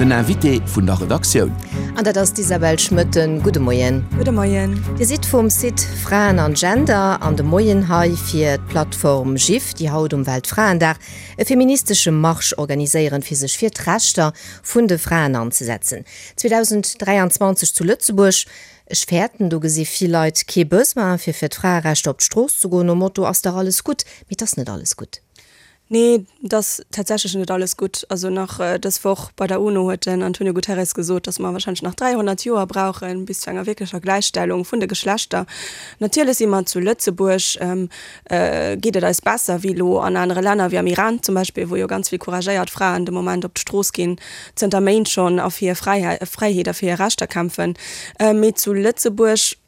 Den Invité vun der Redaktioun. An dat ass d'Isabel Schmoetten. Gudde Moien. Gudde Moien. Dir sidd vum Site Fraen an Gender an de Moien hei fir d'Plattform GIF, déi haut um Weltfraendag e feministesche Marsch organiséieren, fir sech fir d'Rechter vun de Fraen anzesetzen. 2023 zu Lëtzebuerg. Ech fäerten, do gesi vill Leit kee Besoin, fir fir d'Fraerechter op d'Strooss ze goen, nom Motto, Ass dach alles gutt. Mee et ass net alles gutt. Nee, et ass tatsächlech net alles gutt. Also nach dës Woch bei der UNO huet den Antonio Guterres gesot, datt mer warscheinlech nach 300 Joer brauchen, bis zu enger wierklecher Gläichstellung vun de Geschlechter. Natierlech si mer zu Lëtzebuerg, geet et eis besser wéi elo an anere Länner, wéi am Iran zum Beispill, wou jo ganz vill couragéiert Fraen de Moment op d'Strooss ginn, zënter Méint schonn, a fir hir Fräiheet a fir hir Rechter kämpfen. Mee zu Lëtzebuerg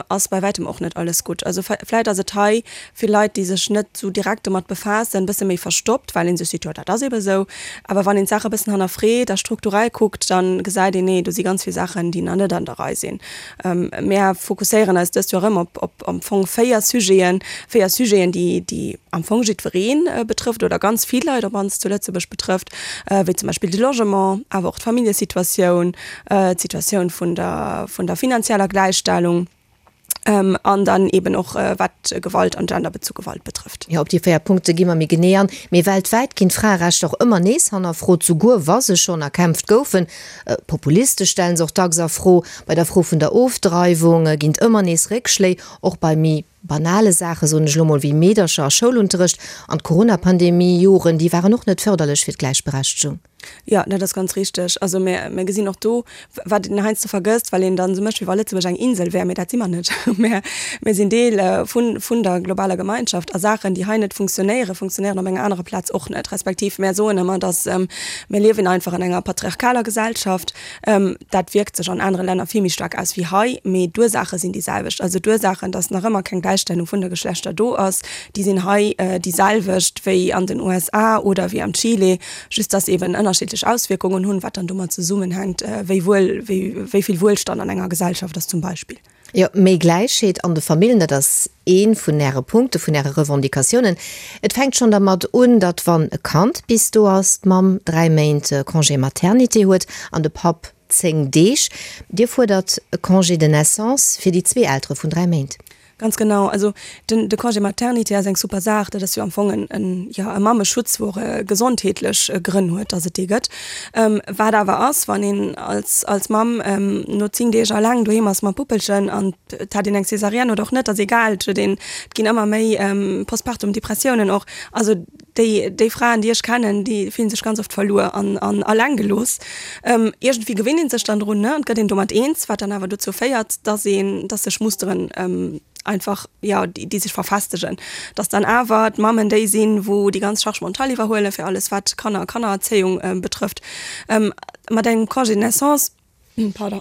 ass bei wäitem och net alles gutt. Also vläit ass et hei fir Leit, déi sech net esou direkt domat befaassen, e bësse méi verstoppt, well ee sech seet, jo dat ass ebe sou. Awer wann een d'Saach e bëssen hannerfreet a strukturell kuckt, da gesäit een, nee, do si ganz vill Saachen, déi nach net an der Rei sinn. Mär fokusséieren eis dëst Joer erëm op op am Fong 4 Sujeten, 4 Sujeten, déi déi am Fong jiddweree betrëfft oder ganz vill Leit op mannst zu Lëtzebuerg betrëfft, wéi zum Beispill de Logement, awer och d'Familljesituatioun, d'Situatioun vun der, vun der finanzieller Gläichstellung an dann eben och wat Gewalt an genderbezu Gewalt betrëfft. Jo, op déi 4 Punkte gi mer méi genee an. Mee weltwäit ginn d'Fraerechter och ëmmer nees hannerfrot, souguer wa se schonn erkämpft goufen. Populiste stellen se och dacks a Fro. Bei der Fro vun der Ofdreiwung ginn et ëmmer nees Réckschléi, och bei méi banale Saache, soen ech elo mol, wéi Meedercher a Schoulunterrecht. An d'Corona-Pandemie-Joren, déi waren och net fërderlech fir d'Gläichberechtegung. Jo, dat ass ganz richteg. Also mir, mir gesinn och do, wat een heiansdo vergësst, well een dann esou mécht, wéi wa Lëtzebuerg eng Insel wär, mee dat si mer net. Mir, mir sinn Deel vun, vun der globaler Gemeinschaft a Saachen, déi hei net funktionéieren, funktionéieren op enger anerer Plaz och net. Respektiv mär soen ëmmer, datt mir liewen einfach an enger patriarchaler Gesellschaft. Dat wierkt sech an anere Länner vill méi staark aus wéi hei, mee d'Ursaache sinn déi selwecht. Also d'Ursaachen, datt nach ëmmer keng Gläichstellung vun de Geschlechter do ass, déi sinn hei déi selwecht wéi an den USA oder wéi am Chile. Just dass eben ënnerschiddlech Auswierkungen hunn, wat dann domat zesummenhänkt, wéi wuel, wéi, wéi vill Wuelstand an enger Gesellschaft ass zum Beispill. Jo, méi Gläichheet an de Famillen, dat ass ee vun Äre Punkte, vun Äre Revendicatiounen. Et fänkt schonn dermat un, datt wann e Kand bis do ass, d'Mamm 3 Méint Congé maternité huet an de Papp 10 Deeg. Dir fuerdert e Congé de naissance fir déi zwee Eltere vun 3 Méint. Ganz genau. Also den, de Congé maternité ass eng super Saach. Dat ass jo am Fong en, en, jo, e Mammeschutz, wou och gesondheetlech Grënn huet, dass et dee gëtt. Wat awer ass, wann een als, als Mamm no 10 Deeg alleng doheem ass mam Puppelchen an et hat een eng Césarienne oder och net, ass egal, et huet een, et ginn ëmmer méi Postpartum-Depressiounen och. Also Déi, déi Fraen, déi ech kennen, déi fillen sech ganz oft verluer an, an alleng gelooss. Iergendwéi gewinnt een sech dann drun, ne, an et gëtt een domat eens, wat dann awer dozou féiert, dass een, dass sech Musteren einfach, jo, déi, déi sech verfestegen. Dass dann awer d'Mammen déi sinn, wou déi ganz Charge mentale iwwerhuelen, fir alles wat Kanner a Kannererzéiung betrëfft. Mat engem Congé de naissance, pardon,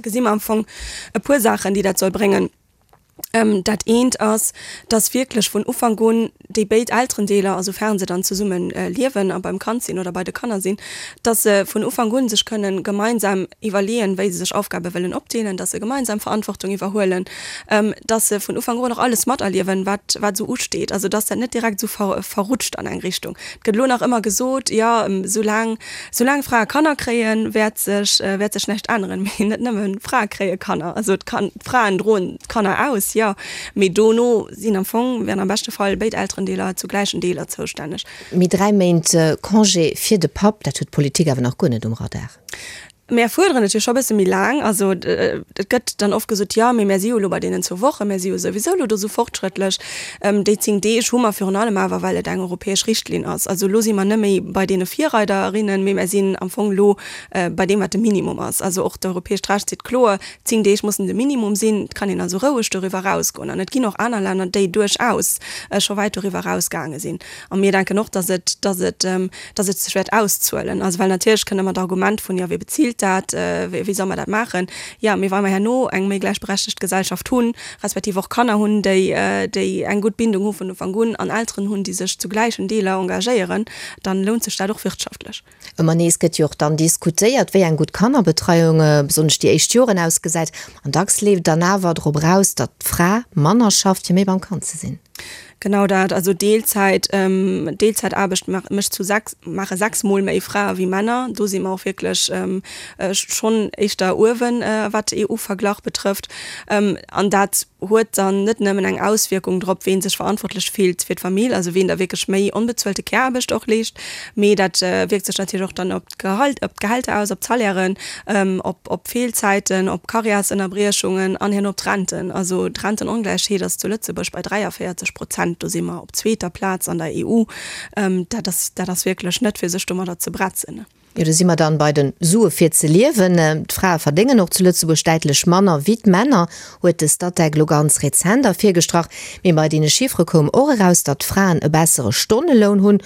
gesi mer am Fong e puer Saachen, déi dat soll bréngen. Dat eent ass, dass wierklech vun Ufank un déi béid Elterendeeler, a soufern se dann zesumme liewen a beim Kand sinn oder bei de Kanner sinn, dass se vun Ufank un sech kënnen gemeinsam iwwerleeën, wéi se sech Aufgabe wëllen opdeelen, dass se gemeinsam Verantwortung iwwerhuelen, dass se vun Ufank un och alles materliewen, wat wat esou usteet, also dass dat net direkt esou verrutscht an eng Richtung. Et gëtt elo nach ëmmer gesot, jo, soulaang Soulaang Frae Kanner kréien, wäert sech, wäert sech näischt änneren. Mee net nëmme Frae kréie Kanner. Also d'Kan-, d'Fraen droen d'Kanner aus, jo, mee dono sinn am Fong, wären am beschte Fall béid Elterendeeler zu gläichen Deeler zoustänneg. Mee 3 Méint Congé fir de Papp, dat huet d'Politik awer nach guer net um Radar. Mär fuerderen et jo scho e bësse méi laang. Also et gëtt dann oft gesot, jo, mee mär si jo elo bei deenen zwou Wochen, mär si jo souwisou elo do esou fortschrëttlech. Déi 10 Deeg hu mer virun allem awer, well et eng europäesch Richtlinn ass. Also elo si mer net méi bei deene Virreiderinnen, mee mär sinn am Fong elo bei deem, wat de Minimum ass. Also och d'europäescht Recht seet kloer, 10 Deeg mussen de Minimum sinn. Et kann een also roueg doriwwer erausgoen. An et ginn och aner Länner, déi duerchaus scho wäit doriwwer erausgaange sinn. A mir denken och, dass et, dass et, dass et sech wäert auszuelen. Also well natierlech kënnt ëmmer d'Argument vun, jo, wie bezilt dat, wéi soll mer dat maachen? Jo, mee wa mer herno eng méi gläichberechtegt Gesellschaft hunn, respektiv och Kanner hunn, déi, déi eng gutt Bindung hu vun Ufank un an Elteren hunn, déi sech zu gläichen Deeler engagéieren, dann lount sech dat och wirtschaftlech. Ëmmer nees gëtt jo och dann diskutéiert, wéi eng gutt Kannerbetreiung, besonnesch déi éischt Joren, ausgesäit. An dacks leeft et dann awer drop eraus, datt d'Fra manner schafft, fir méi beim Kand ze sinn. Genau dat, also Deelzäit, Deelzäitaarbecht mécht zu 6, maache 6 mol méi Frae wéi Männer. Do si mer och wierklech schonn éischter uewen, wat EU-Verglach betrëfft. An dat huet dann net nëmmen eng Auswierkung drop, ween sech verantwortlech fillt fir d'Famill, also ween da wierklech méi onbezuelte Care-Aarbecht och leescht, mee dat wierkt sech natierlech och dann op d'Gehalt, op d'Gehälter aus, op d'Salairen, op op Feelzäiten, op Karriärsënnerbriechungen an herno op d'Renten. Also d'Rentenongläichheet ass zu Lëtzebuerg bei 43 Prozent, do si mer op zweeter Plaz an der EU. Dat ass, dat ass wierklech net fir sech domadder ze bretzen. Jo, do si mer dann bei den Sue fir ze liewen. D'Frae verdéngen och zu Lëtzebuerg däitlech manner wéi d'Männer, huet de Statec elo ganz rezent ervirgestrach. Mee bei deene Chiffere koum och eraus, datt d'Fraen e bessere Stonneloun hunn.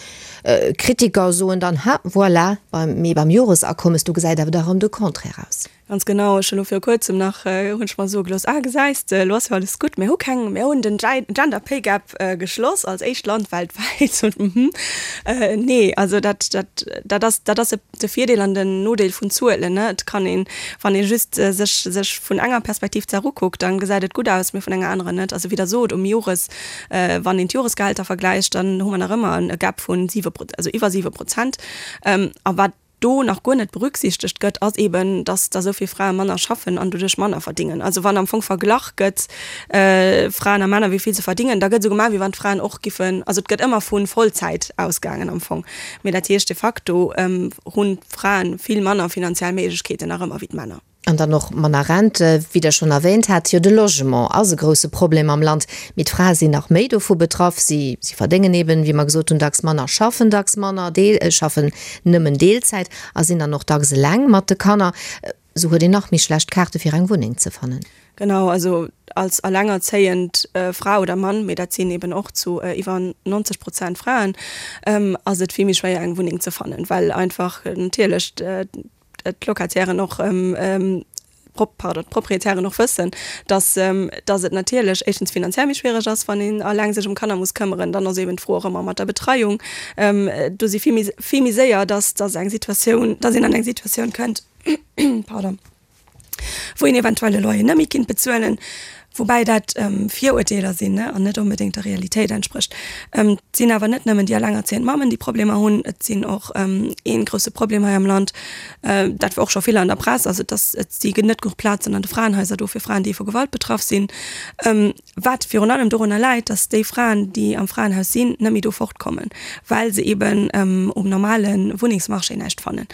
Kritiker soen dann, ha voilà, mee beim Joresakommes, do gesäit awer da rëm de Contraire aus. Ganz genau, ech hunn elo viru kuerzem nach, hunn ech mer soe gelooss, ah gesäis de, elo ass jo alles gutt, mir hu keng, mir hunn den Gender Pay Gap geschloss als éischt Land weltwäit. Mhm, nee, also dat, dat, dat ass, dat ass de Virdeel an den Nodeel vun Zuelen, ne. Et kann een, wann ee just sech, sech vun enger Perspektiv d'Saach ukuckt, dann gesäit et gutt aus, mee vun enger anerer net. Also wéi Der sot, um Jores, wann een d'Joresgehälter vergläicht, dann hu mer nach ëmmer e Gap vun siwe, also iwwer 7%. A wat do nach guer net berücksichtegt gëtt, ass eben, dass da esou vill Frae manner schaffen an doduerch manner verdingen. Also wann am Fong verglach gëtt, Fraen a Männer, wéi vill se verdingen, da gëtt esou gemaach, wéi wann d'Fraen och giffen, also et gëtt ëmmer vu Vollzäit ausgaangen am Fong. Mee dat heescht de facto hunn d'Frae vill manner finanziell Méiglechkeeten nach ëmmer wéi d'Männer. An dann och manner Rente, wéi Der schonn erwähnt hat. Jo, de Logement ass e grouse Problem am Land, mee d'Frae sinn nach méi dovu betraff. Si, si verdéngen eben, wéi mer gesot hunn, dacks manner, schaffen dacks manner, deel, schaffen nëmmen Deelzäit a sinn dann och dacks eleng mat de Kanner. Esou huet een nach méi schlecht Kaarte fir eng Wunneng ze fannen. Genau, also als alengerzéiend Fra oder Mann, mee dat sinn eben och zu iwwer 90 Prozent Fraen, ass et vill méi schwéier eng Wunneng ze fannen, well einfach natierlech d'Locatairen och, pardon, d'Proprietären och wëssen, dass, dass et natierlech éischtens finanziell méi schwiereg ass, wann een eleng sech ëm Kanner muss këmmeren. Dann ass eben d'Fro och ëmmer mat der Betreiung. Do si vill méi, vill méi séier, dass, dass eng Situatioun, dass een an eng Situatioun kënnt, pardon, wou een eventuell e Loyer net méi kinnt bezuelen, woubäi dat Virurteeler sinn an net onbedéngt der Realitéit entsprécht. Et sinn awer net nëmmen déi allengerzéiend Mammen, déi Problemer hunn, et sinn och ee grousse Problem hei am Land, dat war och scho vill an der Press, also dass et si net genuch Plazen an de Fraenhaiser do fir Fraen, déi vu Gewalt betraff sinn, wat virun allem dorunner läit, dass déi Fraen, déi am Fraenhaus sinn, net méi do fortkommen, well se eeben um normale Wunnengsmarché näischt fannen.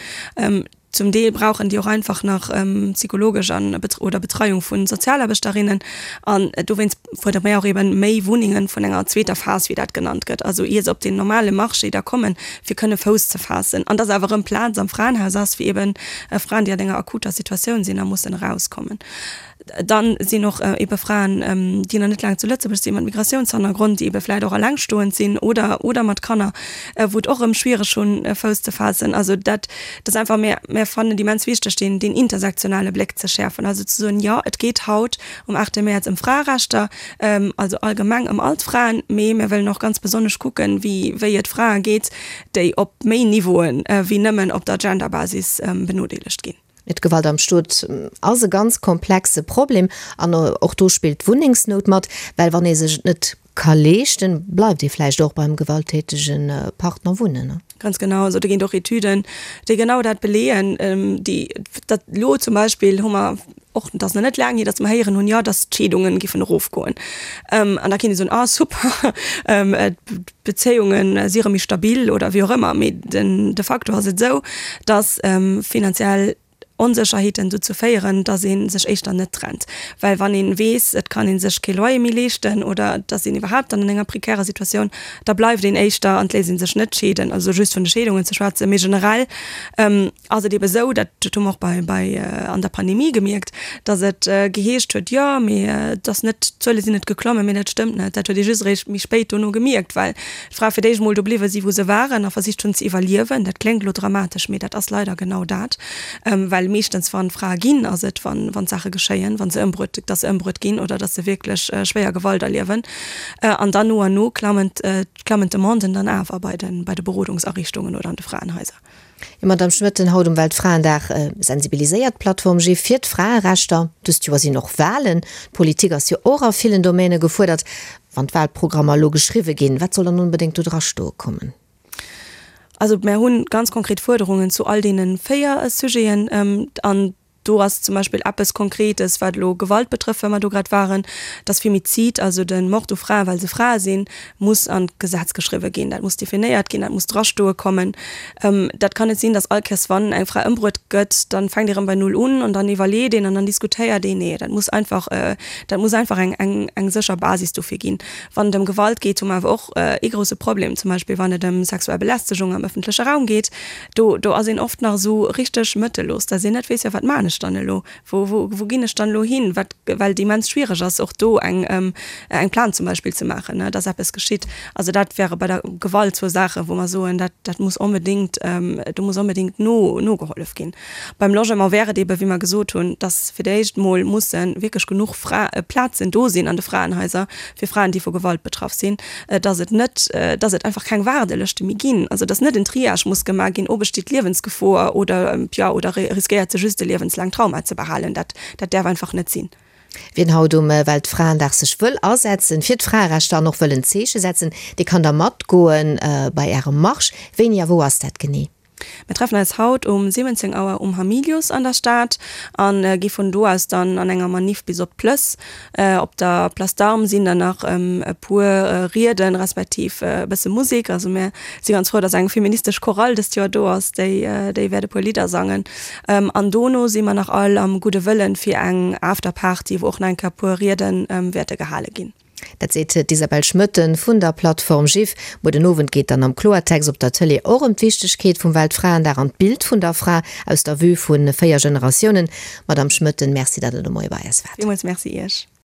Zum Deel brauchen déi och einfach nach psychologesch an oder Betreiung vu Sozialaarbechterinnen. An dowéinst fuerdere mir och eben méi Wunnengen vun enger zweeter Phas, wéi dat genannt gëtt, also ier se op den normale Marché da kommen, fir kënne Fouss ze faassen. An dass awer erëm Plaz am Fraenhaus ass fir eben Fraen, déi an enger akuter Situatioun sinn a mussen erauskommen. Dann sinn och ebe Fraen, déi nach net laang zu Lëtzebuerg sinn, mat Migratiounshannergrond, déi ebe vläicht och elengstoend sinn oder, oder mat Kanner, wou et och erëm schwiereg hunn, Fouss ze faassen. Also dat ass einfach, mir, mir fannen et immens wichteg, deen, deen intersektionale Bléck ze schäerfen, also ze soen, jo, et geet haut um 8 Mäerz ëm Fraerechter, also allgemeng ëm all d'Fraen, mee mir wëllen och ganz besonnesch kucken, wéi, wéi et Frae geet, déi op méi Niveauen wéi nëmmen op der Genderbasis benodeelegt ginn. D'Gewalt am Stot ass e ganz komplexe Problem an och do spillt d'Wunnengsnout mat, well wann ee sech et net ka leeschten, bleift ee vläicht och beim gewalttätege Partner wunnen. Ganz genau, also do ginn et och Etüden, déi genau dat beleeën, déi dat elo zum Beispill hu mer och, et ass nach net laang hier, datt mer héieren hunn, jo, datt d'Scheedungen giffen erofgoen. An da kéint ee soen, ah super, d'Bezéiunge si erëm méi stabil oder wéi och ëmmer, mee den de facto ass et esou, datt finanziell Onsécherheeten dozou féieren, datt ee sech éischter net trennt. Well wann ee weess, et kann ee sech kee Loyer méi leeschten oder et ass een iwwerhaapt dann an enger prekärer Situatioun, da bleift een éischter an et léisst ee sech net scheeden. Also just vun de Scheedungen ze schwätzen, mee generell ass et ebe sou, dat hu mer och bei, bei an der Pandemie gemierkt, datt et geheescht huet, jo, mee et ass net, d'Zuele sinn net geklommen, mee dat stëmmt net. Dat huet ee just eréischt méi spéit dono gemierkt, well d'Frae fir d'éischt emol do bliwwe si wou se waren a versicht hunn ze iwwerliewen. Dat kléngt elo dramatesch, mee dat ass leider genau dat, well meeschtens wann Frae ginn, ass et wann, wann Saache geschéien, wa se ëmbruet, datt se ëmbruet ginn oder datt se wierklech schwéier Gewalt erliewen. An dann no an no klammen, klammen d'Demanden dann awer bei de, bei de Berodungsariichtungen oder an de Fraenhaiser. Jo, Madamm Schmoetten, haut um Weltfraendag sensibiliséiert d'Plattform GIF fir d'Fraerechter. Dëst Joer sinn och Walen. D'Politik ass jo och a villen Domäne gefuerdert. Wann d'Walprogrammer elo geschriwwe ginn, wat soll dann onbedéngt do dra stoe kommen? Also mär hu ganz konkret Fuerderungen zu all deene 4 Sujeten. An do ass zum Beispill eppes Konkretes, wat elo Gewalt betrëfft, well mer do grad waren, dass Femizid, also de Mord u Fraen, well se Frae sinn, muss an d'Gesetz geschriwwe ginn. Dat muss definéiert ginn, dat muss drastoe kommen. Dat kann net sinn, dass all Kéiers, wann eng Fra ëmbruet gëtt, dann fänkt ee rëm bei Null un an dann iwwerleet een an dann diskutéiert een. Nee, dat muss einfach, dat muss einfach eng, eng, eng sécher Basis dofir ginn. Wann et ëm Gewalt geet, hu mer awer och ee grouse Problem, zum Beispill wann et ëm sexuell Belästegung am ëffentleche Raum geet. Do, do ass een oft nach esou richteg mëttellos, dass een net weess, jo wat maan ech dann elo, wou, wou, wou ginn ech dann elo hin, wat, well et immens schwiereg ass och do eng, eng Plainte zum Beispill ze maachen, ne, dass eppes geschitt. Also dat wäre bei der Gewalt zwou Saachen, wou mer soen, dat, dat muss onbedéngt, do muss onbedéngt no, nogehollef ginn. Beim Logement wär et eebe wéi mer gesot hunn, dass fir d'éischt mol musse wierklech genuch Fra, Plazen do sinn an de Fraenhaiser fir Fraen, déi vu Gewalt betraff sinn. dass et net, dass et einfach keng Waardelëschte méi ginn, also dass net en Triage muss gemaach ginn, oh besteet Liewensgefor oder, jo, oder riskéiert se just e liewenslaangt Trauma ze behalen. Dat, dat däerf einfach net sinn. Wien haut um Weltfraendag sech wëll asetzen fir d'Fraerechter an och wëll en Zeeche setzen, dee kann da matgoen bei Ärem Marsch. Wéini a wou ass dat genee? Mir treffen eis haut um 17 Auer um Hamilius an der Stad an gi vun do aus dann an enger Maniff bis op d'Plëss. Op der Place d'Armes sinn dann nach e puer Rieden respektiv e bësse Musek. Also mir si ganz frou, dass eng feministesch Chorale dëst Joer do ass, déi déi wäert e puer Lidder sangen. An dono si mer nach all am Gudde Wëllen fir eng Afterparty, wou och nach eng Kéier e puer Rieden wäerte gehale ginn. Dat seet d'Isabelle Schmoetten vun der Plattform GIF. Muer den Owend geet dann am Kloertext op der Tëlee och ëm d'Wichtegkeet vum Weltfraendag an d'Bild vun der Fra aus der Vue vu 4 Generatiounen. Madamm Schmoetten, Merci, datt Der de Moie bei eis waart. Villmools Merci Iech.